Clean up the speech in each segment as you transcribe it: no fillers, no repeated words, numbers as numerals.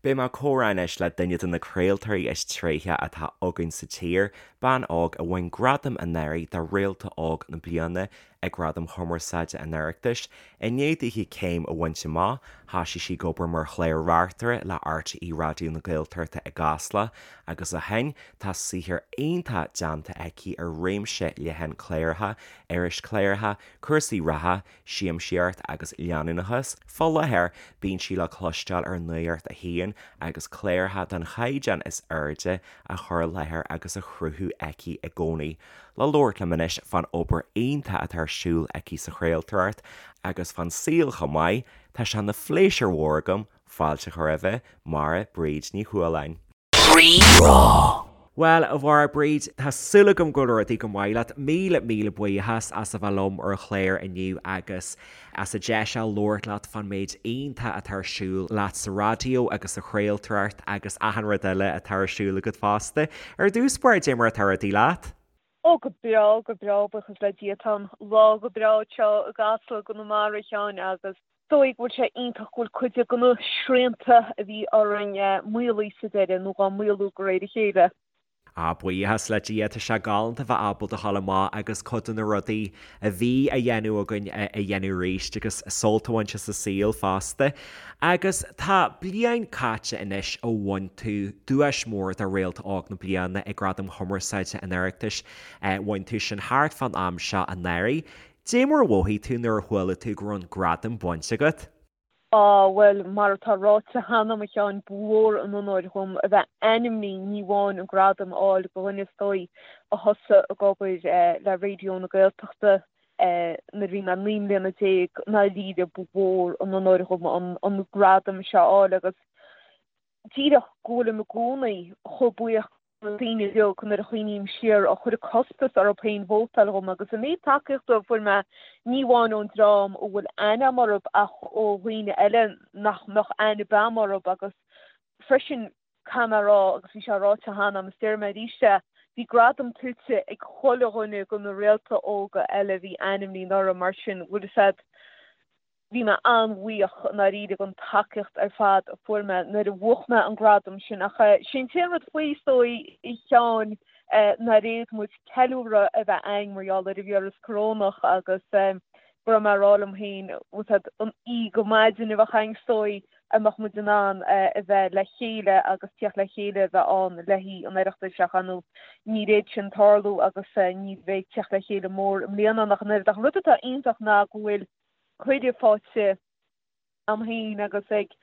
Beidh mé ag comhrá anois le duine de na craoltóirí is tréithe atá againn sa tír, bean óg a bhain gradam anuraidh do Réalta Óg na Bliana ag Gradaim Chumarsáide an Oireachtais. I ndiaidh daoithi céim a bhaint amach, thoisigh sí ag obair mar chlár-reachtaire le RTÉ Raidió na Gaeltachta i gCasla agus ó shin tá saothar iontach déanta aici ar réimse leathan cláracha, irischláracha, cúrsaí reatha, siamsaíocht agus leanúnachas. Fá láthair, bíonn sí le cloisteáil ar Nuacht a hAon agus cláracha den chaighdeán is airde á chur i láthair agus á chruthú aici i gcónaí. Le labhairt liom anois fán obair iontach atá ar siúl aici sa chraoltóireacht agus fán saol chomh maith, tá sé ina phléisiúr mhór agam fáilte a chur roimhe, Máire Bríd Ní Chualáin. Rí-Rá. Bhuel, a Mháire Bríd, tá súil agam go bhfuil rudaí go maith leat. Míle, míle buíochas as a bheith liom ar an chlár inniu agus as an deis a labhairt leat fán méid iontach atá ar siúl leat sa raidió agus sa chraoltóireacht agus achan rud eile atá ar siúl agat fosta. Ar dtús báire, dé mar atá rudaí leat? Ó, go breá, go breá, buíochas le Dia. Tá an lá go breá anseo i gCasla i gConamara, a Sheáin, agus is dóigh go bhfuil sé iontach go bhfuil cuid de na srianta a bhí orainn maolaithe sa deireadh, nó dhá maolú de réir a chéile. Á, buíochas le Dia, tá sé galánta bheith ábalta a ghabháil amach agus cuid de na rudaí a bhí á dhéanamh againn a dhéanamh arís agus sult a bhaint as an saol fosta. Agus tá bliain caite anois ó bhain tú duais mhór do Réalta Óg na Bliana ag Gradaim Chumarsáide an Oireachtais. Bhain tú sin thart fán am seo anuraidh. Dé mar a mhothaigh tú nuair a chuala tú go raibh an gradam bainte agat? Á, bhuel, mar atá ráite cheana, a Sheáin, ba mhór an onóir dhom a bheith ainmnithe, ní amháin an gradam a fháil do dhuine is dóigh a thosaigh ag obair le Raidió na Gaeltachta nuair a bhí mé 19 mbliana, i ndáiríre ba mhór an onóir dhom an gradam seo a fháil agus díreach go bhfuilim i gcónaí chomh buíoch na daoine uilig nuair a chuimhním siar a chuir costas orthu féin vótáil dhom agus an méid tacaíochta a fuair mé ní amháin ón dream a bhfuil aithne agam orthu ach ó dhaoine eile nach mbeadh aithne ar bith agam orthu agus freisin caithfidh mé a rá agus bhí sé ráite cheana agam is déarfaidh mé arís é, bhí gradam tuillte ag chuile dhuine de na réalta óga eile a bhí ainmnithe anuraidh mar sin bhfuil fhios a'd Bhí mé an-bhuíoch i ndáiríre den tacaíocht ar fad a fuair mé nuair a bhuaigh mé an gradam sin ach sé an t-aon rud faoi is dóigh, a Sheáin, nár fhéad muid ceiliúradh a bheith a'inn mar gheall ar an víreas corónach agus go raibh mé ag rá liom féin, bhfuil fhios a'd, an oíche go maidin a bheadh a'inn is dóigh a mbeadh muid in ann a bheith le chéile agus tíocht le chéile a bheith ann le haghaidh an Oireachtais ach ar ndóigh níor fhéad sin tarlú agus ní bheidh tíocht le chéile mór i mbliana ach an oiread. Ach an rud atá iontach ná go bhfuil cuireadh faighte a'm féin agus ag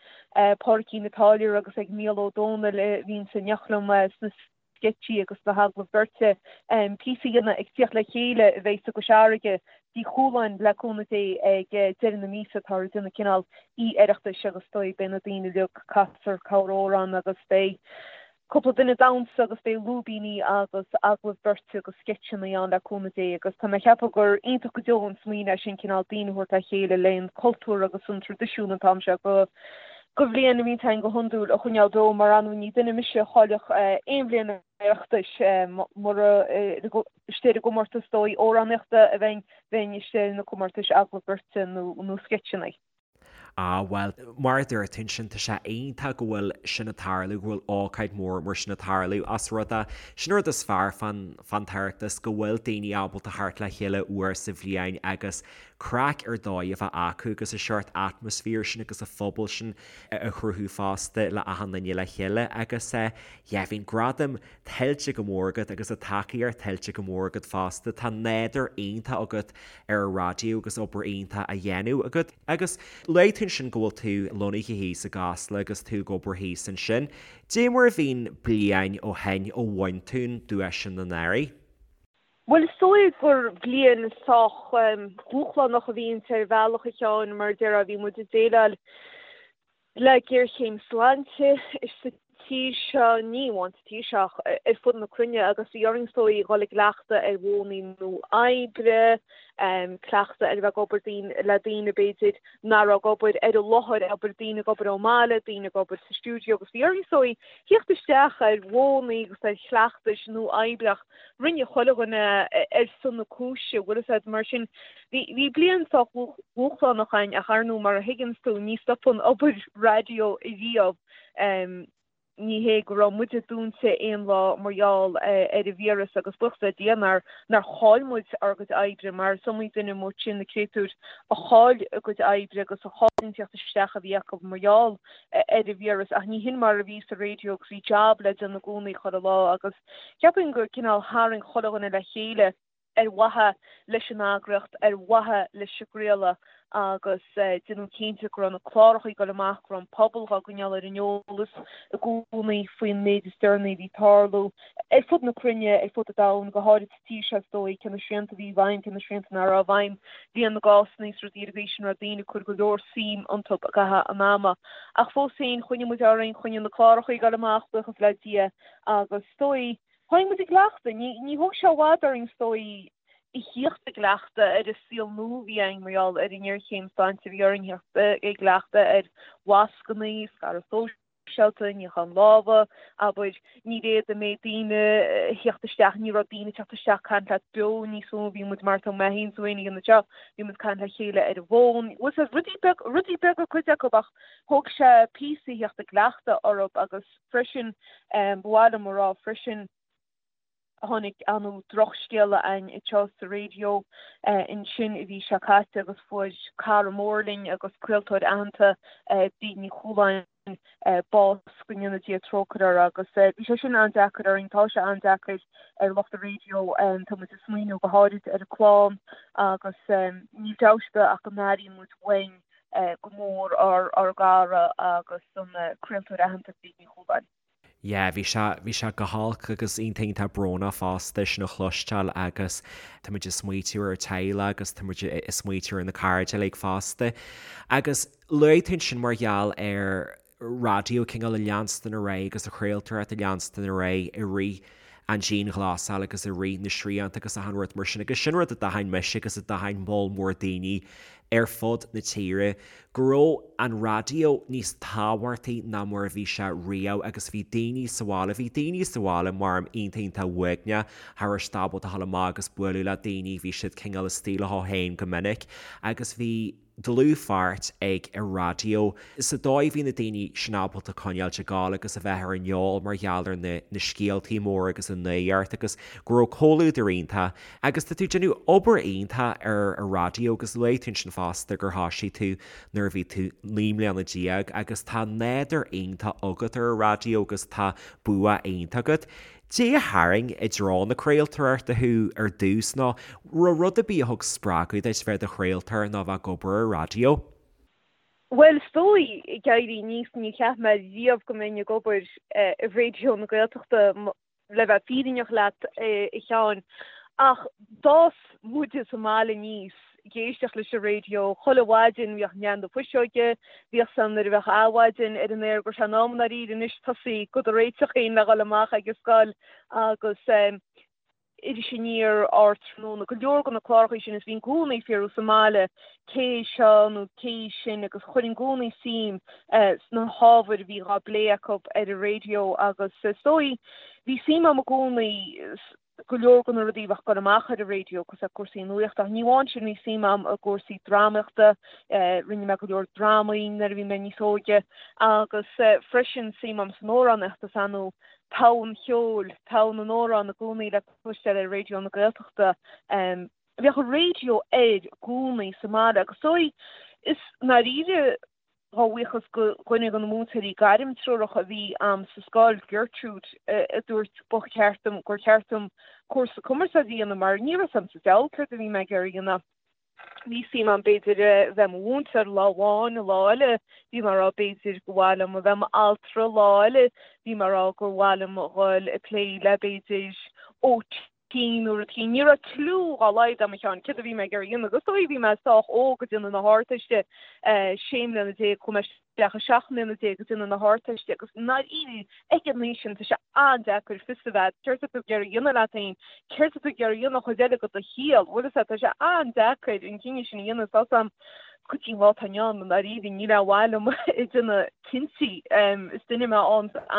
Pádraicín an Táilliúra agus ag Mícheál Ó Domhnaill a bhíonns in éineacht liom sna sceitsí agus sna hagallaimh beirte, píosa a dhéanamh ag tíocht le chéile a bheidh i gCois Fharraige, Tigh Chualáin le cúnamh Dé ag deireadh na míosa. Táthar ag déanamh cineál oíche Oireachtais agus is dóigh beidh na daoine uilig casfar corr-amhrán agus beidh cúpla duine ag damhsa agus beidh lúibíní agus agallaimh beirte agus sceitseanna ann le cúnamh Dé agus tá mé ag ceapadh gur iontach go deo an smaoineamh é sin cineál daoine a thabhairt le chéile le an cultúr agus an traidisiún an t-am seo go go bhliain a bhíonn againn go hiondúil a choinneáil beo mar ar ndóigh ní duine mise a chaillfeadh aon bhliain Oireachtais mura istigh ar an gcomórtas dóigh amhránaíochta a bheinn bheinn istigh ar na comórtais agallamh beirte nó nó sceitseanna. Ah, bhuel, mar a dúirt tú ansin, tá sé iontach go bhfuil sin ag tarlú, go bhfuil ócáid mhór mar sin ag tarlú as rud é, sin an rud is fearr fán, fán tOireachtas, go bhfuil daoine ábalta theacht le chéile uair sa bhliain agus craic ar dóigh a bheith acu agus an seort atmaisféar sin agus an phobal sin a chruthú fosta le achan duine le chéile agus eh, yeah, bhí an gradam tuillte go mór agat agus an tacaíocht tuillte go mór agat fosta. Tá nádúr iontach agat ar an raidió agus obair iontach á dhéanamh agat. Agus luaigh tú ansin go bhfuil tú lonnaithe thíos i gCasla agus tú ag obair thíos ansin. Dé mar a bhí an bliain ó shin ó bhain tú an duais sin anuraidh? Bhuel, is dóigh gur bliain sách dúshlánach a bhí inti ar bhealach, a Sheáin, mar a déarfá, bhí muid ag déileáil le géarchéim sláinte sa tír seo, ní amháin sa tír seo ach ar fud na cruinne, agus bhí orainn is dóigh dhul i gcleachtadh ar mhodhanna nua oibre. Cleachtadh ar a bheith ag obair le daoine b'fhéidir nach raibh ag obair ar an láthair, abair, daoine ag obair ón mbaile, daoine ag obair sa stiúideo agus bhí orainn is dóigh theacht isteach ar mhodhanna agus ar chleachtais nua oibre ach rinne chuile dhuine ar son na cúise, bhfuil fhios a'd, mar sin bhí bhí bliain sách dhúshlánach againn ach ar ndóigh mar a thuigeanns tú ní stopann obair raidió riamh. Ní hé go raibh muide dúnta aon lá mar gheall ar an víreas agus buíochas le Dia nár nár chaill muid ár gcuid oibre mar is iomaí duine amuigh ansin na créatúir a chaill a gcuid oibre agus a chaill an tíocht isteach a bhí acu mar gheall ar an víreas ach ní hin mar a bhí sa raidió agus bhí jab le déanamh i gcónaí chuile lá agus cheapfainn gur cineál tharraing chuile dhuine le chéile ar mhaithe leis an eagraíocht, ar mhaithe leis an gcraoladh agus déanamh cinnte go raibh na cláracha ag dul amach, go raibh an pobal dhá gcoinneáil ar an eolas i gcónaí faoin méid is deireanaí a bhí ag tarlú ar fud na cruinne, ar fud an domhain, go háirid sa tír seo is dóigh, cé na srianta a bhí i bhfeidhm, cé na srianta nach raibh i bhfeidhm, líon na gcásanna is rudaí ar an gcaoi sin, raibh daoine ag cur go leor suim iontu i gcaitheamh an ama. Ach fós féin, choinnigh muid orainn, choinnigh na cláracha ag dul amach, buíochas le Dia, agus is dóigh, Tháinig muid i gcleachtadh. Ní thóg sé i bhfad orainn is dóigh a thíocht i gcleachtadh ar an saol nua a bhí againn mar gheall ar an ngéarchéim sláinte. Bhí orainn thíocht i gcleachtadh ar mhascannaí, scaradh sóisialta, níochán lámha, abair. Ní raibh an méid daoine a thíocht isteach, ní raibh daoine ag teacht isteach caint leat beo níos mó. Bhí muid mar atá mé féin is tú féin ag déanamh anseo, bhí muid caint le chéile ar an bhfón. Bhfuil fhios agat, rudaí beaga, rudaí beaga cuid acu ach thóg sé píosa a thíocht i gcleachtadh orthu agus freisin. Ba mhaith liom a rá freisin, tháinig an drochscéala againn anseo sa raidió ansin an mhí seo caite agus fuair cara mór linn agus craoltóir aitheanta, Bríd Ní Chualáin, bás, go ndéana Dia trócaire uirthi agus bhí sé sin an-deacair orainn, tá sé an-deacair ar lucht an raidió, tá muid ag smaoineamh go háirid ar a clann agus níl dabht ar bith ach go n-airíonn muid uainn go mór ár gcara agus an craoltóir aitheanta Bríd Ní Chualáin. Yeah, bhí sé, bhí sé go holc agus iontach iontach brónach fosta sin a chloisteáil agus tá muid ag smaoitiú ar a teaghlach agus tá muid ag smaoitiú ar na cairde uilig fosta. Agus luaigh tú ansin mar gheall ar raidió cineál a leanstan ar aghaidh agus an chraoltóireacht a leanstan ar aghaidh i rith an dianghlasáil agus i rith na srianta agus achan rud mar sin agus sin rud a d'aithin mise agus a d'aithin moll mór daoine ar fud na tíre go raibh an raidió níos tábhachtaí ná mar a bhí sé riamh agus bhí daoine sa bhaile, bhí daoine sa bhaile mar iontach iontach uaigneach, cha raibh siad ábalta a dhul amach agus bualadh le daoine, bhí siad cineál istigh leo féin go minic agus bhí. dlúthpháirt ag an raidió sa dóigh a bhí na daoine sin ábalta coinneáilt ag gabháil agus a bheith ar an eol mar gheall ar na na scéaltaí móra agus an nuacht agus go raibh comhluadar iontach agus tá tú ag déanamh obair iontach ar an raidió agus luaigh tú ansin fosta gur thoisigh tú nuair a bhí tú 19 mbliana agus tá nádúr iontach agat ar an raidió agus tá bua iontach agat. Cad é a tharraing i dtreo na craoltóireachta thú ar dtús nó raibh rud ar bith a thug spreagadh duit bheith i do chraoltóir nó bheith ag obair ar raidió? Bhuel, is dóigh, ag éirí aníos, níor cheap mé riamh go mbeinn ag obair i Raidió na Gaeltachta, le bheith fírinneach leat, a Sheáin. Ach d'fhás muide sa mbaile aníos ag éisteacht leis an raidió chuile mhaidin, bhíodh Nean na Fuiseoige, bhíodh san nuair a bheadh Adhmhaidin ar an aer go raibh sé in am i ndáiríre anois tosaí do do réiteach féin le dhul amach ag an scoil agus Iris Aniar, Ardtráthnóna, go leor de na cláracha sin is bhínn i gcónaí ag fiafraí sa mbaile cé é seo nó cé í sin agus chuirinn i gcónaí suim sna hábhair a bhí dhá bplé acu ar an raidió agus is dóigh bhí suim agam i gcónaí go leor de na rudaí a bheadh ag dul amach ar an raidió, cosúil le cúrsaí nuachta. Ach ní amháin sin, bhí suim agam i gcúrsaí drámaíochta, rinne mé go leor drámaí nuair a bhí mé níos óige, agus freisin suim agam san amhránaíocht, is ar ndóigh togha an cheoil, togha na n-amhrán i gcónaí le cloisteáil ar Raidió na Gaeltachta. Bheadh an raidió air i gcónaí sa mbaile agus is dóigh, is i ndáiríre, A bhuíochas go dhuine de na múinteoirí gairmtreorach a bhí a'm sa scoil, Gertrude, a dúirt ba cheart dom, gur cheart dom cúrsa cumarsáide a dhéanamh mar ní raibh 's a'm sa diabhal céard a bhí mé ag iarraidh a dhéanamh. Bhí suim a'm b'fhéidir a bheith i mo mhúinteoir lá amháin, lá eile bhí mé ag rá b'fhéidir gur mhaith liom a bheith i m'altra, lá eile bhí mé ag rá gur mhaith liom a dhul ag plé le b'fhéidir OT. Cinn nó rud éicint. Ní raibh cliú dhá laghad a'm a Sheáin céard a bhí mé ag iarraidh a dhéanamh agus is dóigh bhí mé sách óg ag déanamh na hArdteiste, sé mbliana déag, chuaigh mé isteach ag 17 mbliana ag déanamh na hArdteiste agus i ndáiríre ag an aois sin tá sé an-deacair fios a bheith céard atá tú ag iarraidh a dhéanamh leat féin, céard atá tú ag iarraidh a dhéanamh an chuid eile de do shaol, bhfuil fhios a'd, tá sé an-deacair an cinneadh sin a dhéanamh, tá 'fhios a'm go dtí an lá atá inniu ann i ndáiríre níl aon mhaith liom ag déanamh cinntí. Is duine mé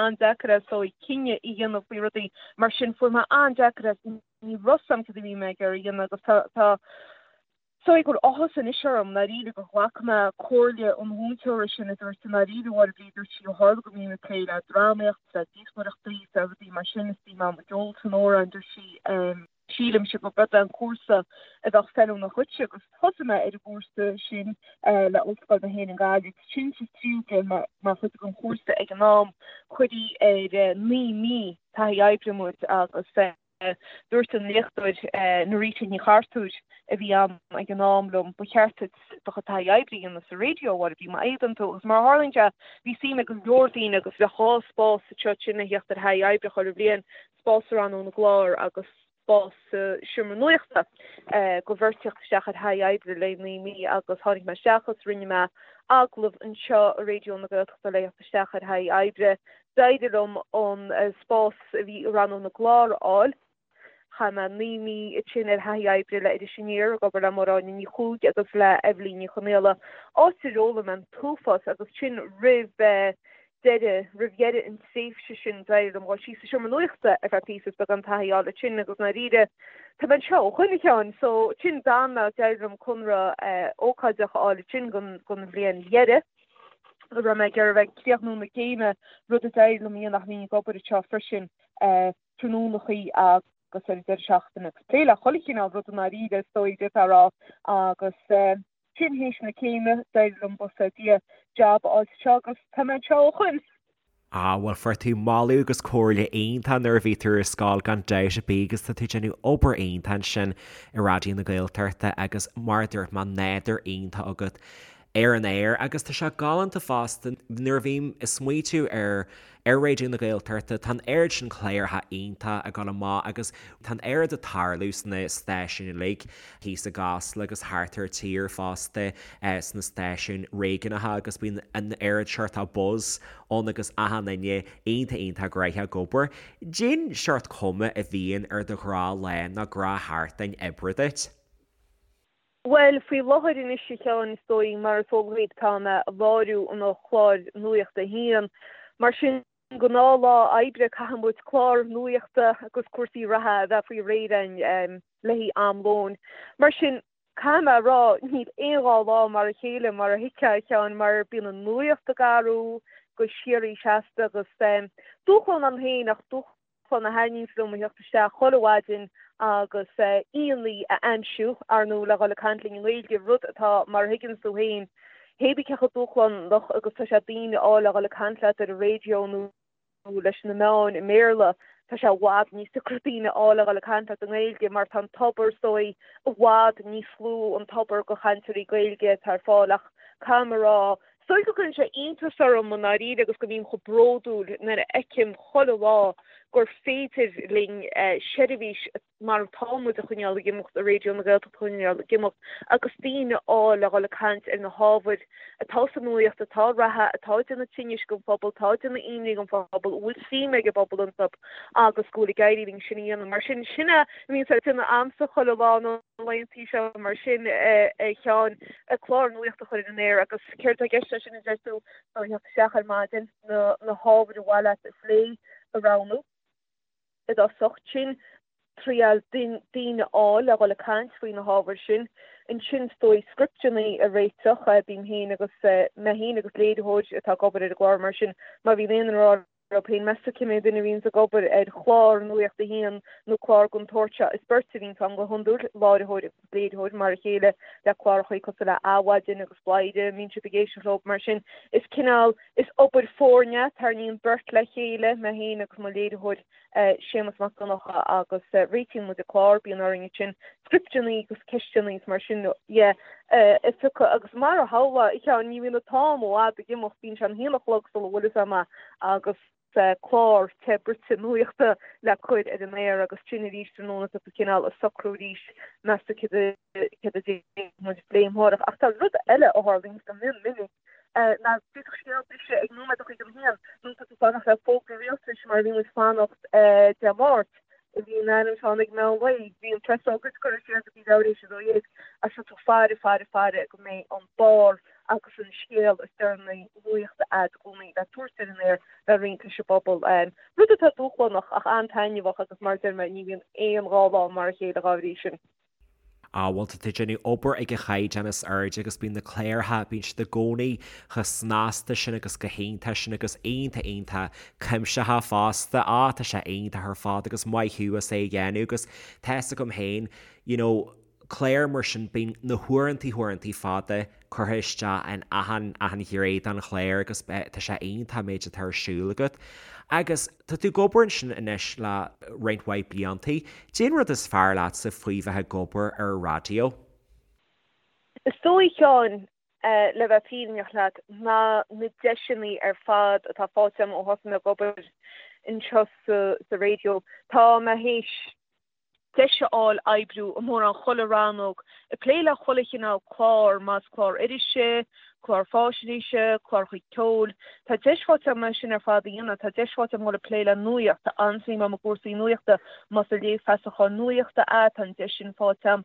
an-deacair is dóigh cinneadh a dhéanamh faoi rudaí mar sin fuair mé an-deacair as ní raibh 'fhios a'm cad a bhí mé ag iarraidh a dhéanamh agus tá tá is dóigh go bhfuil áthas anois orm i ndáiríre gur ghlac mé comhairle an mhúinteora sin a dúirt i ndáiríre a Mháire Bríd dúirt sí ó tharla go mbím ag plé le drámaíocht le díospóireachtaí le rudaí mar sin is bím ag ceol san amhráin dúirt sí Sílimse gurb é an cúrsa a bheadh feiliúnach dhuitse agus thosaigh mé ar an gcúrsa sin le Ollscoil na hÉireann Gaillimh. Sin sa tríú bliain mar chuid den chúrsa ag an am. Cuireadh ar 9 mí taithí oibre muid agus dúirt an léachtóir Norita Ní Chartúir a bhí ann ag an am liom, ba cheart duit do chuid taithí oibre a dhéanamh sa raidió, a Mháire Bhríd, má fhéadann tú. Agus mar a tharlaíonn sé, bhí suim ag go leor daoine agus bheadh dhá spás anseo ansin a theacht ar thaithí oibre chuile bhliain. spás sa rannóg na gclár agus spás sa seomra nuachta do bheirt theacht isteach ar thaithí oibre le 9 mí agus tháinig mé isteach agus rinne mé agallamh anseo i Raidió na Gaeltachta le theacht isteach ar thaithí oibre. D'éirigh liom an spás a bhí i rannóg na gclár a fháil. Chaith mé 9 mí ansin ar thaithí oibre le Iris Aniar ag obair le Máire Áine Ní Chuaig agus le Eibhlín Ní Chonaola, áit ar fhoghlaim mé an t-uafás agus sin roimh deireadh, roimh dheireadh an tréimhse sin, d'éirigh liom dhul síos sa seomra nuachta ar feadh píosa is beagán taithí a fháil ansin agus i ndáiríre, tá mé anseo ó shoin a Sheáin, so ansin d'fhan mé, d'éirigh liom conradh ócáideach a fháil ansin don, don bhliain dheiridh, a raibh mé ag iarraidh a bheith ag críochnú na céime, rud a d'éirigh liom a dhéanamh ach bhínn ag obair anseo freisin tráthnónachaí agus ar an deireadh seachtaine agus plé le chuile chineál rud i ndáiríre is dóigh, d'fhéadfá a rá agus. Sin théis na céime, d'éirigh liom, buíochas le Dia, jab a fháil anseo agus tá mé anseo ó shoin. Ah, bhuel, fuair tú moladh agus comhairle iontach nuair a bhí tú ar scoil gan dabht ar bith agus tá tú ag déanamh obair iontach ansin i Raidió na Gaeltachta agus mar a dúirt mé, nádúr iontach agat ar an aer agus tá sé galánta fosta nuair a bhím ag smaoitiú ar Ar Raidió na Gaeltachta, tá an oiread sin cláracha iontach ag dul amach agus tá an oiread ag tarlú sna stáisiúin uilig, thíos i gCasla agus thart ar tír fosta, sna stáisiúin réigiúnacha agus bíonn an oiread seort buzz ann agus achan duine iontach iontach gnoitheach ag obair. Cén seort cuma a bhíonn ar do ghnáthlá nó gnáthsheachtain oibre duit. Bhuel, faoi láthair anois, a Sheáin, is dóigh, mar is eol dhuit, tá mé ag láithriú an chláir nuachta féin. Mar sin, gnáthlá oibre, caithfidh muid clár nuachta agus cúrsaí reatha a bheith faoi réir againn le haghaidh am lóin. Mar sin, caithfidh mé a rá, níl aon dhá lá mar a chéile, mar a thuigfeá, a Sheáin, mar bíonn an nuacht ag athrú go síoraí seasta agus dúshlán ann féin ach dúshlán a thaitníonns liom a theacht isteach chuile mhaidin agus aíonna a aimsiú, ar ndóigh, le dhul ag caint linn i nGaeilge, rud atá, mar a thuigeanns tú féin, hé bí cé chomh dúshlánach agus tá sé daoine a fháil le dhul ag caint leat ar an raidió nó leis na meáin i mBéarla, tá sé i bhfad níos deacra daoine a fháil le dhul ag caint leat i nGaeilge mar tá an tobar, is dóigh, i bhfad níos lú an tobar de chainteoirí Gaeilge atá ar fáil ach caithfidh mé a rá, Is dóigh go gcuireann sé iontas orm i ndáiríre agus go mbím chomh bródúil nuair a fheicim chuile lá gur féidir linn seirbhís mar atá muid a choinneáil ag imeacht i Raidió na Gaeltachta a choinneáil ag imeacht agus daoine a fháil le dhul ag caint ar na hábhair atá sa nuaíocht, atá reatha, atá ag déanamh tinnis don phobal, atá ag déanamh imní don phobal, a bhfuil suim ag an bpobal iontu agus go bhfuil ag éirí linn sin a dhéanamh. Mar sin, sin é a bhíonns ag déanamh a'msa chuile lá na. laethanta seo mar sin, a Sheáin, clár nuachta a chur ar an aer agus céard atá i gceist leis sin a deir tú, ná theacht isteach ar maidin, na na hábhair ar mhaith leat a phlé a roghnú i dtosach, ansin triail daoine a fháil le dhul ag caint faoi na hábhair sin, ansin is dóigh scripteanna a réiteach, bím féin agus mé féin agus léiritheoir atá ag obair ar an gclár mar sin má bhíonn aon duine ag rá leo féin, meas tú cé mhéad duine a bhíonns ag obair ar chlár Nuacht a hAon nó clár den tsórt seo? Is beirt a bhíonns ann go hiondúil, láithreoir agus léiritheoir, mar a chéile le cláracha cosúil le Adhmhaidin agus Bladhaire, a mbíonn sibh ag éisteacht leo. Mar sin, is cineál, is obair foirne é, tarraingíonn beirt le chéile, mé féin agus mo léiritheoir Séamus Mac Donncha agus réitíonn muid an clár, bíonn orainn ansin scripteanna agus ceisteanna agus mar sin dhe a phiocadh agus mar a shamhlófá, a Sheáin, ní bhíonn an t-am i bhfad ag imeacht, bíonn sé an haon a chlog sula bhfuil fhios a'm agus. Clár te bruite nuachta le cur ar an aer agus sin arís tráthnóna tá tú cineál ag socrú arís meas tú céard a céard a déanfaidh muid a phlé amárach. Ach tá rud eile a tharlaíonn go mion minic ná d'fhéadfadh scéal briseadh ag nóiméad a chuig an haon nó tá tú fanacht le fógra rialtais mar a bhí muid fanacht Dé Máirt a bhí in ainm tháinig meán lae bhí an preasócáid curtha siar go dtí leathuair théis 12 ach tá tú faire faire faire go mbeidh an barr agus an scéal is deireanaí nuachta a'd i gcónaí le tabhairt ar an aer le roinnt leis an bpobal. Rud atá dúshlánach ach an-taitneamhach agus mar a deir mé ní bhíonn aon dá lá mar a chéile dhá bhrí sin. Á, bhuel tá tú ag déanamh obair ag an chaighdeán is airde agus bíonn na cláracha, bíonn siad i gcónaí chomh snasta sin agus chomh hiontach sin agus iontach iontach cuimsitheach fosta. Á, tá sé iontach ar fad agus maith thú as é a dhéanamh agus tá fhios agam féin, you know, clár mar sin, bíonn na huaireantaí huaireantaí fada curtha isteach in achan, achan ghné den chlár agus tá sé iontach an méid atá ar siúl agat. Agus tá tú ag obair ansin anois le roinnt mhaith bliantaí. Cén rud is fearr leatsa faoi bheith ag obair ar an raidió? Is dóigh, a Sheáin, le bheith fírinneach leat, ná na deiseanna ar fad atá faighte agam ó thosaigh mé ag obair anseo sa raidió. Tá mé théis deis a fháil oibriú i mórán chuile rannóg, ag plé le chuile chineál clár, más clár irise, clár fáisnéise, cláracha ceoil. Tá deis faighte agam é sin ar fad a dhéanamh. Tá deis faighte agam dul ag plé le nuaíocht. Tá an-suim agam i gcúrsaí nuachta. Más ag léamh feasacháin nuachta é, tá an deis sin faighte agam.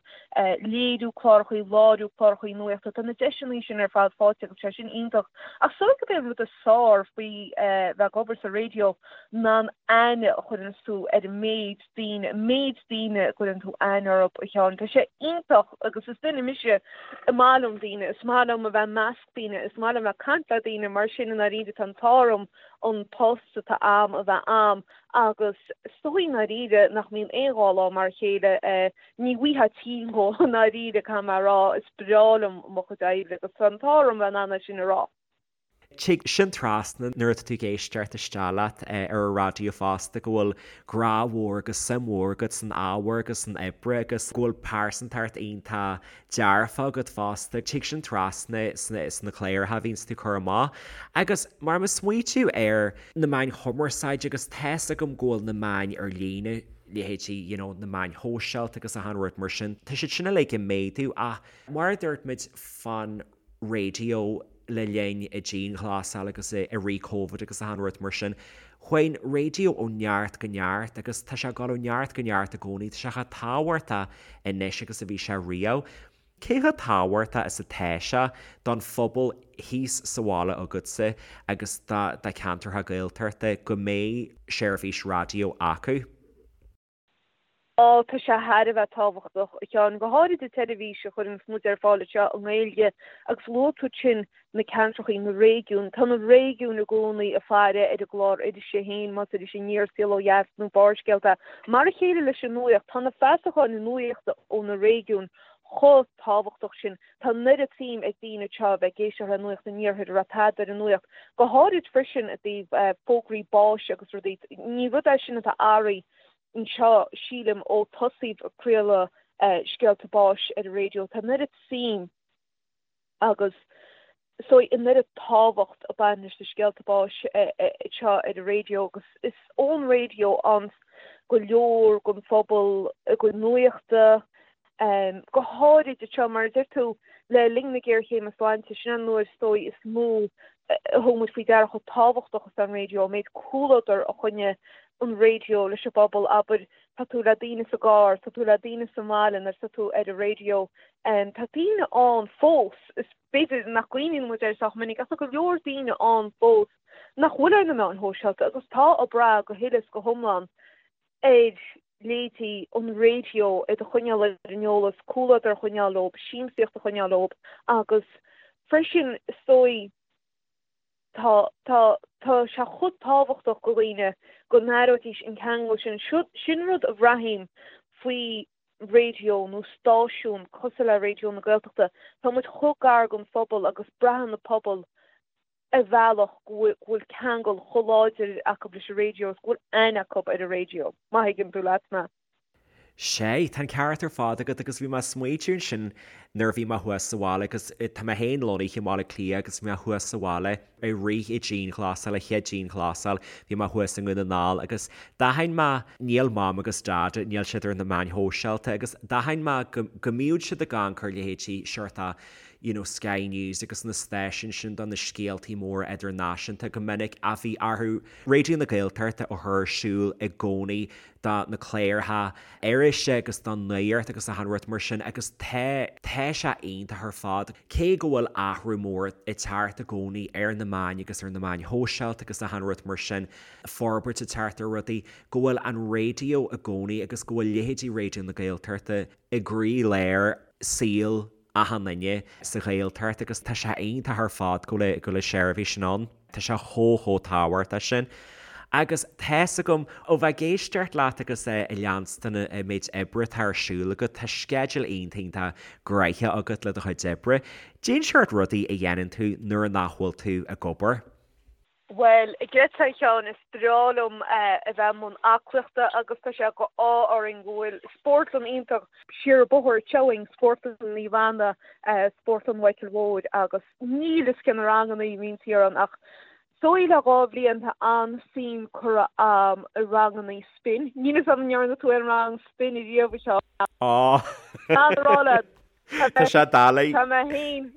Léiriú cláracha, láithriú cláracha nuachta, tá na deiseanna sin ar fad faighte agus tá sé sin iontach. Ach is dóigh gurb é an rud is fearr faoi bheith ag obair sa raidió ná an aithne a chuireanns tú ar an méid daoine, an méid daoine a gcuireann tú aithne orthu, a Sheáin. Tá sé iontach agus is duine mise, is maith liom daoine, is maith liom a bheith i measc daoine, is maith liom a bheith ag caint le daoine, mar sin i ndáiríre tá an t-ádh orm an post atá a'm a bheith a'm agus is dóigh i ndáiríre nach mbíonn aon dá lá mar a chéile, ní bhfaighfeá tinn dhó i ndáiríre, caithfidh mé a rá, is breá liom mo chuid oibre agus tá an t-ádh orm a bheith in ann é sin a rá. Tig sin trasna nuair atá tú ag éisteacht isteach leat ar an raidió fosta go bhfuil grá mhór agus suim mhór agat san ábhar agus san oibre agus go bhfuil pearsantacht iontach dearfach agat fosta. Tig sin trasna sna cláracha a bhíonns tú ag cur amach. Agus mar mo smaoitiú ar na meáin chumarsáide agus tá's agam go bhfuil na meáin ar líne, leithéidí you know na meáin shóisialta agus achan rud mar sin, tá siad sin uilig ag méadú ach mar a dúirt muid fán raidió le linn an dianghlasáil agus i rith Covid agus achan rud mar sin. Chuaigh an raidió ó neart go neart agus tá sé ag dul ó neart go neart i gcónaí. Tá sé chomh tábhachtach anois agus a bhí sé riamh. Cé chomh tábhachtach is atá sé don phobal thíos sa bhaile agatsa agus do cheantracha Gaeltachta go mbeidh seirbhís raidió acu? Á, tá sé thar a bheith tábhachtach, a Sheáin, go háirid an tseirbhís a chuireanns muid ar fáil anseo i nGaeilge agus luaigh tú ansin na ceantrachaí, na réigiúin. Tá na réigiúin i gcónaí ag faire ar an gclár irise féin, más Iris Aniar, Saol Ó Dheas nó Barrscéalta. Mar a chéile leis an nuaíocht, tá na feasacháin nuachta ó na réigiúin chomh tábhachtach sin. Tá an oiread suim ag daoine anseo a bheith ag éisteacht le Nuacht an Iarthair, a raibh tada ar an nuacht, go háirid freisin i dtaobh fógraí báis agus rudaí. Ní rud é sin atá athraithe anseo, sílim, ó tosaíodh ag craoladh scéalta báis ar an raidió. Tá an oiread suim agus is dóigh an oiread tábhacht ag baint leis na scéalta báis anseo ar an raidió agus is ón raidió a fhaigheanns go leor den phobal a gcuid nuachta, Go háirid anseo, mar a deir tú, le linn na géarchéime sláinte, sin an uair is dóigh is mó a thug muid faoi deara chomh tábhachtach is atá an raidió, an méid comhluadar a choinnigh an raidió leis an bpobal, abair, tá tú le daoine sa gcarr, tá tú le daoine sa mbaile nuair atá tú ar an raidió. Tá daoine ann fós, is b'fhéidir nach gcuimhníonn muid air sách minic, ach tá go leor daoine ann fós nach bhfuil ar na meáin shóisialta agus tá ag brath go huile is go hiomlán ar leithéidí an raidió iad a choinneáil ar an eolas, comhluadar a choinneáil leo, siamsaíocht a choinneáil leo agus freisin is dóigh tá, tá, tá sé chomh tábhachtach go dhaoine go n-aireoidís an ceangal sin. Sin rud a bhraithim faoi raidió nó stáisiún cosúil le Raidió na Gaeltachta. Tá muid chomh gar don phobal agus braitheann an pobal ar bhealach go bhfuil ceangal chomh láidir acu leis an raidió is go bhfuil aithne acu ar an raidió, má thuigeann tú leat mé. Sea, tá an ceart ar fad agat agus bhí mé ag smaoitiú ansin nuair a bhí mé thuas sa bhaile agus tá mé féin lonnaithe i mBaile Átha Cliath agus bhí mé thuas sa bhaile i rith an dianghlasáil, an chéad dianghlasáil, bhí mé thuas i nDún na nGall agus d'aithin mé, níl Mam agus Dad, níl siad ar na meáin shóisialta agus d'aithin mé go, go mbíodh siad ag amharc ar leithéidí seort a' you know Sky News agus na stáisiúin sin do na scéaltaí móra idirnáisiúnta go minic ach bhí orthu Raidió na Gaeltachta a chur ar siúl i gcónaí do na cláracha irise agus don nuacht agus achan rud mar sin agus tá, tá sé iontach ar fad. Cé go bhfuil athrú mór ag teacht i gcónaí ar na meáin agus ar na meáin shóisialta agus achan rud mar sin, forbairt ag teacht ar rudaí, go bhfuil an raidió i gcónaí agus go bhfuil leithéidí Raidió na Gaeltachta i gcroí-lár saol achan duine sa Ghaeltacht agus tá sé iontach ar fad go bhfuil go bhfuil an seirbhís sin ann. Tá sé chomh chomh tábhachtach sin. Agus tá's agam, ó bheith ag éisteacht leat agus ag leanstan an méid oibre atá ar siúl agat, tá sceideal iontach iontach gnoitheach agat le do chuid oibre. Cén seort rudaí a dhéanann tú nuair nach bhfuil tú ag obair? Bhuel, a Ghreta, a Sheáin, is breá liom a bheith i mbun aclaíochta agus tá sé de ádh orainn go bhfuil spórtlann iontach siar an bóthar anseo againn, Spórtlann Naomh Anna, Spórtlann Mhichíl Mhóir agus níl fhios cé na ranganna a bhíonn thiar ann ach is dóigh le 2 bhliain tá an-suim curtha a'm i ranganna spin. Níl fhios a'm an ndearna tú aon rang spin ariamh, a Sheáin? Á! An rá leat, Tá sé doiligh. Tá mé féin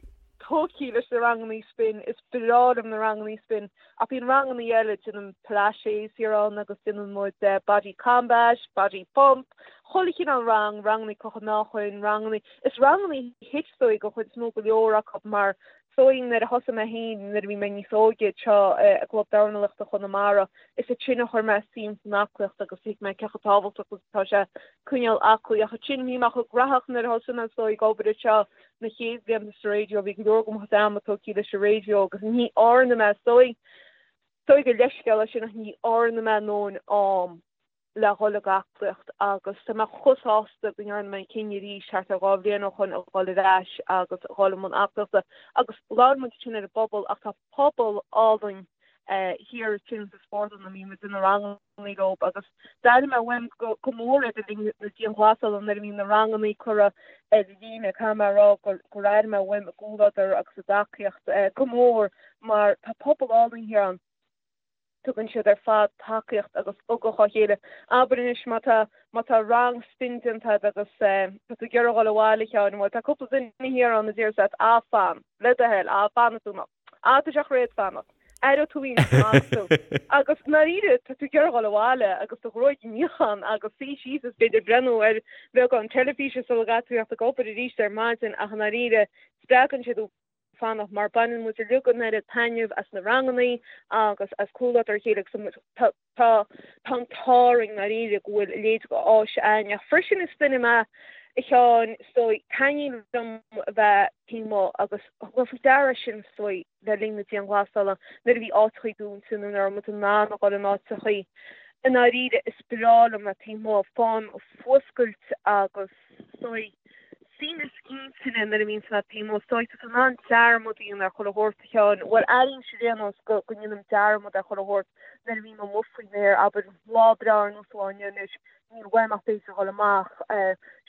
tógtha leis na rangannaí spin, is breá liom na rangannaí spin, ach bíonn rangannaí eile, déanaim pilates thiar ann agus déanann muid body combat, body pump, chuile chineál rang, rangannaí crochadh meáchain, rangannaí, is rangannaí HIIT is dóigh den chuid is mó go leor acu mar is dóigh nuair a thosaigh mé féin nuair a bhí mé níos óige anseo i gClub Dornálaíochta Chonamara, is ansin a chuir mé suim san aclaíocht agus thuig mé cé chomh tábhachtach is atá sé coinneáil aclaí. Ach ansin bhí mé chomh graitheach nuair a thosaigh mé is dóigh ag obair anseo na chéad bhlianta sa raidió, bhí go leor de mo chuid ama tógtha leis an raidió agus ní dhearna mé, is dóigh, is dóigh gur leithscéal é sin ach ní dhearna mé a ndóthain am le dhul ag aclaíocht agus tá mé chomh sásta go ndearna mé an cinneadh arís thart ar 2 bhliain ó shoin a dhul ar ais agus a dhul i mbun aclaíochta agus labhair muid ansin ar an bpobal ach tá pobal álainn thiar ansin sa spórtlann a mbíonn muid ag déanamh na rangannaí leo agus d'airigh mé uaim go mór iad le linn na dianghlasála nuair a bhí na rangannaí curtha ar líne caithfidh mé a rá gur airigh mé uaim a gcomhluadar agus a dtacaíocht go mór mar tá pobal álainn thiar ann. Tugann siad ar fad tacaíocht agus ugach dá chéile. Abair anois má tá, má tá rang spin déanta agat agus tá tú ag iarraidh a dhul abhaile, a Sheáin, bhuel tá cúpla duine thiar ann a déarfas leat, ah fan, le do thoil, ah fanfaidh tú nó ah tá sé chréad fanacht, aireoidh tú iontach fanfaidh tú. Agus i ndáiríre tá tú ag iarraidh a dhul abhaile agus do ghruaig a níochán agus suí síos is b'fhéidir breathnú ar bheagán teilifíse sula gcaithfidh tú theacht ag obair arís ar maidin ach i ndáiríre spreagann siad thú fanacht mar baineann muid uilig an oiread taitneamh as na rangannaí agus as comhluadar a chéile agus tá tá an t-ádh orainn i ndáiríre go bhfuil a leithéid de áis againn ach freisin is duine mé a Sheáin is dóigh taitníonn liom a bheith taobh amuigh agus thug mé faoi deara sin is dóigh le linn na dianghlasála nuair a bhí áiteachaí dúnta nó nuair a raibh muid in ann a dhul in áiteachaí i ndáiríre is breá liom a bheith taobh amuigh faighim fuascailt agus is dóigh Suaimhneas intinne nuair a bhíonns mé taobh amuigh. Is dóigh tá tú in ann dearmad a dhéanamh ar chuile shórt, a Sheáin. Bhuel, airímse ar aon nós go ndéanaim dearmad ar chuile shórt nuair a bhím amuigh faoin aer. Abair, lá breá ar nós an lá inniu anois, níl uaim ach b'fhéidir dhul amach,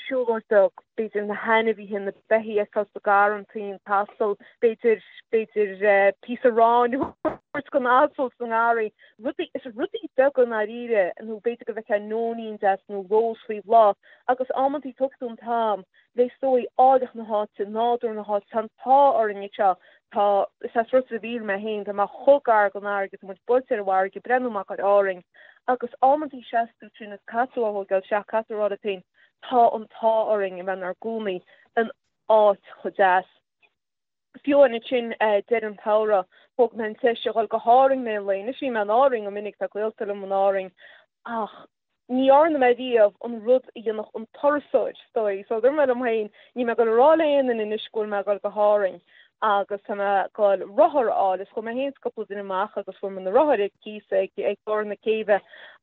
siúlóid bheag, b'fhéidir na hainmhithe, na beithígh a fheiceáil sa gharrantaí, an t-asal, b'fhéidir, b'fhéidir píosa aráin a thabhairt don asal sa ngarraí. Rudaí, is rudaí beaga i ndáiríre, nó b'fhéidir go bhfeicfeá nóinín deas nó rós faoi bhláth. Agus amantaí tógfaidh tú an t-am le is dóigh áilleacht na háite, nádúr na háite, tá an t-ádh orainn anseo, tá, is as Ros a' Mhíl mé féin, tá mé chomh gar don fharraige, tá muid buailte ar an bhfarraige, breathnú amach ar Árainn agus amantaí seas tú ansin is caithfidh tú a thógáil isteach, caithfidh tú a rá leat féin, tá an t-ádh orainn a bheith inár gcónaí in áit chomh deas. Fiú ansin deireadh an tsamhraidh, thóg mé an deis a dhul go hÁrainn mé an lae. Anois bhí mé in Árainn go minic, tá gaolta liom in Árainn, ach ní dhearna mé riamh an rud a dhéanfadh an turasóir, is dóigh. So dúirt mé liom féin, níl mé ag dul a rá le aon duine anois go bhfuil mé ag dul go hÁrainn. Agus tá mé ag goil rothar a fháil is chuaigh mé féin is cúpla duine amach agus fuair muid na rothair ar cíos ag ag barr na céibhe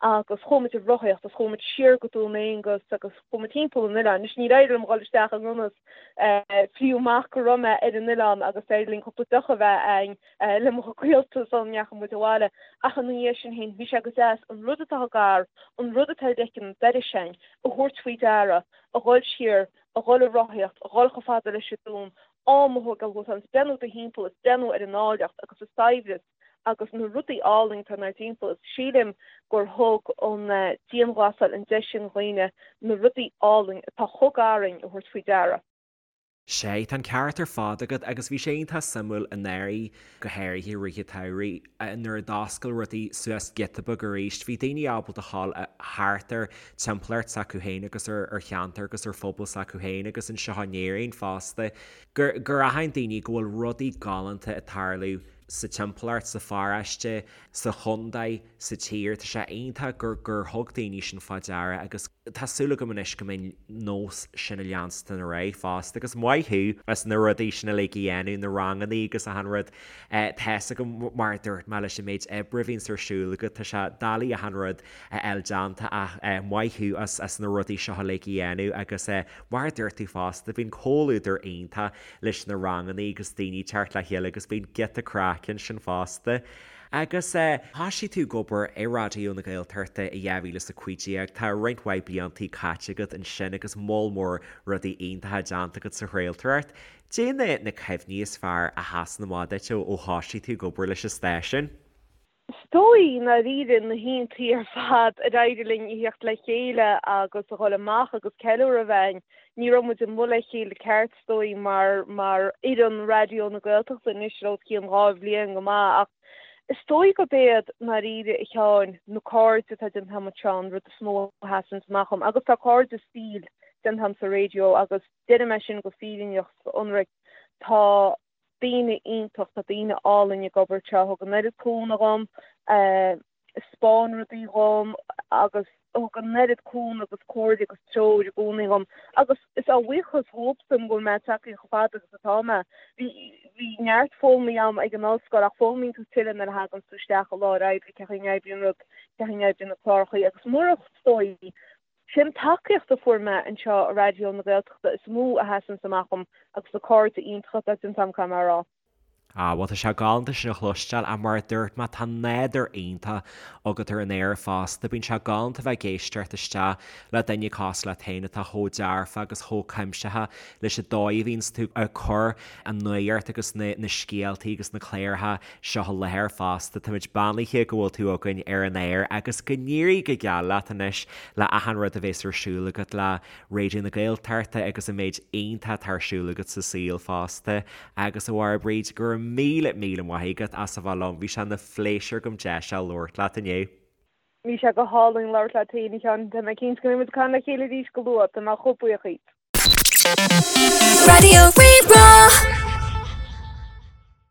agus chuaigh muid ag rothaíocht agus chuaigh muid siar go Dún Aonghus agus chuaigh muid timpeall an oileáin. Anois níor éirigh liom dhul isteach i ngan fhios fiú amach go raibh mé ar an oileán agus d'éirigh linn cúpla deoch a bheith a'inn le mo ghaolta sula ndeachaigh muid abhaile. Ach ina dhiaidh sin féin bhí sé go deas an rud atá gar, an rud atá ar leiceann an dorais a'inn, a thabhairt faoi deara, a dhul siar, a dhul ag rothaíocht, a dhul chomh fada leis an dún, am a thógáil dhuit agus breathnú i do thimpeall is breathnú ar an áilleacht agus an saibhreas agus na rudaí álainn atá inár dtimpeall is sílim gur thug an dianghlasáil an deis sin dhaoine na rudaí álainn atá chomh gar dhúinn a thabhairt faoi deara. Sea, tá an ceart ar fad agat agus bhí sé iontach suimiúil anuraidh, go háirithe i rith an tsamhraidh, nuair a d'oscail rudaí suas giota beag arís, bhí daoine ábalta a ghabháil thart ar timpeallacht s'acu féin agus ar cheantar agus ar phobal s'acu féin agus anseo in Éirinn fosta, gur gur aithin daoine go bhfuil rudaí galánta ag tarlú sa timpeallacht, sa pharóiste, sa chontae, sa tír. Tá sé iontach gur gur thug daoine sin fá deara agus tá súil agam anois go mbeidh nós sin ag leanstan ar aghaidh fosta agus maith thú as na rudaí sin uilig a dhéanamh, na rangannaí agus achan rud. Tá's agam mar a dúirt mé leis an méid oibre a bhíonns ar siúl agat, tá sé doiligh achan rud a fháil déanta ach maith thú as na rudaí seo uilig a dhéanamh agus mar a dúirt tú fosta bíonn comhluadar iontach leis na rangannaí agus daoine teacht le chéile agus bíonn giota craic ansin fosta. Agus thoisigh tú ag obair i Raidió na Gaeltachta i 2015, tá roinnt mhaith bliantaí caite agat ansin agus moll mór rudaí iontacha déanta agat sa chraoltóireacht. Cad é na cuimhní is fearr a sheasann amach duit ó thoisigh tú ag obair leis an stáisiún? Is dóigh, i ndáiríre, na hoícheantaí ar fad ar éirigh linn a thíocht le chéile agus a dhul amach agus ceiliúradh a bheith againn. Ní raibh muid amuigh le chéile ceart, is dóigh, mar mar fhoireann Raidió na Gaeltachta anois le os cionn 2 bhliain go maith ach is dóigh gurb iad, i ndáiríre, a Sheáin, na cairde atá déanta agam anseo an rud is mó a sheasann amach dhom agus tá cairde saoil déanta agam sa raidió agus deirim é sin go fírinneach 's go hionraic, tá daoine iontach, tá daoine álainn ag obair anseo, thug an oiread cúnamh dhom, spáin rudaí dhom agus thug an oiread cúnamh agus comhairle agus treoir i gcónaí dhom agus is á bhuíochas dhóibhsean go bhfuil mé tagtha chomh fada agus atá mé. Bhí bhí neart foghlamtha agam ag an ollscoil ach foghlaimíonn tú tuilleadh nuair a thagann tú isteach i láthair oibre, cén chaoi a n-oibríonn rud, cén chaoi a n-oibríonn na cláracha agus murach is dóigh Sé an tacaíocht a fuair mé anseo i Raidió na Gaeltachta is mó a sheasanns amach dhom agus na cairde iontacha atá déanta agam, caithfidh mé a rá. Ah, bhuel tá sé galánta sin a chloisteáil ach mar a dúirt mé tá nádúr iontach agat ar an aer fosta. Bíonn sé galánta bheith ag éisteacht isteach le duine cosúil leat féin atá chomh dearfa agus chomh cuimsitheach leis an dóigh a bhíonns tú ag cur an nuacht agus na na scéaltaí agus na cláracha seo i láthair fosta. Táimid beannaithe go bhfuil tú againn ar an aer agus go n-éirí go geal leat anois le achan rud a bhéas ar siúl agat le Raidió na Gaeltachta agus an méid iontach atá ar siúl agat sa saol fosta. Agus a Mháire Bríd, go raibh míle míle maith agat as a bheith liom, bhí sé ina phléisiúr agam deis a labhairt leat inniu. Bhí sé go hálainn labhairt leat féin, a Sheáin. Tá mé cinnte go mbeidh muid ag caint le chéile arís go luath. Tá mé chomh buíoch díot. Raidió Rí-Rá.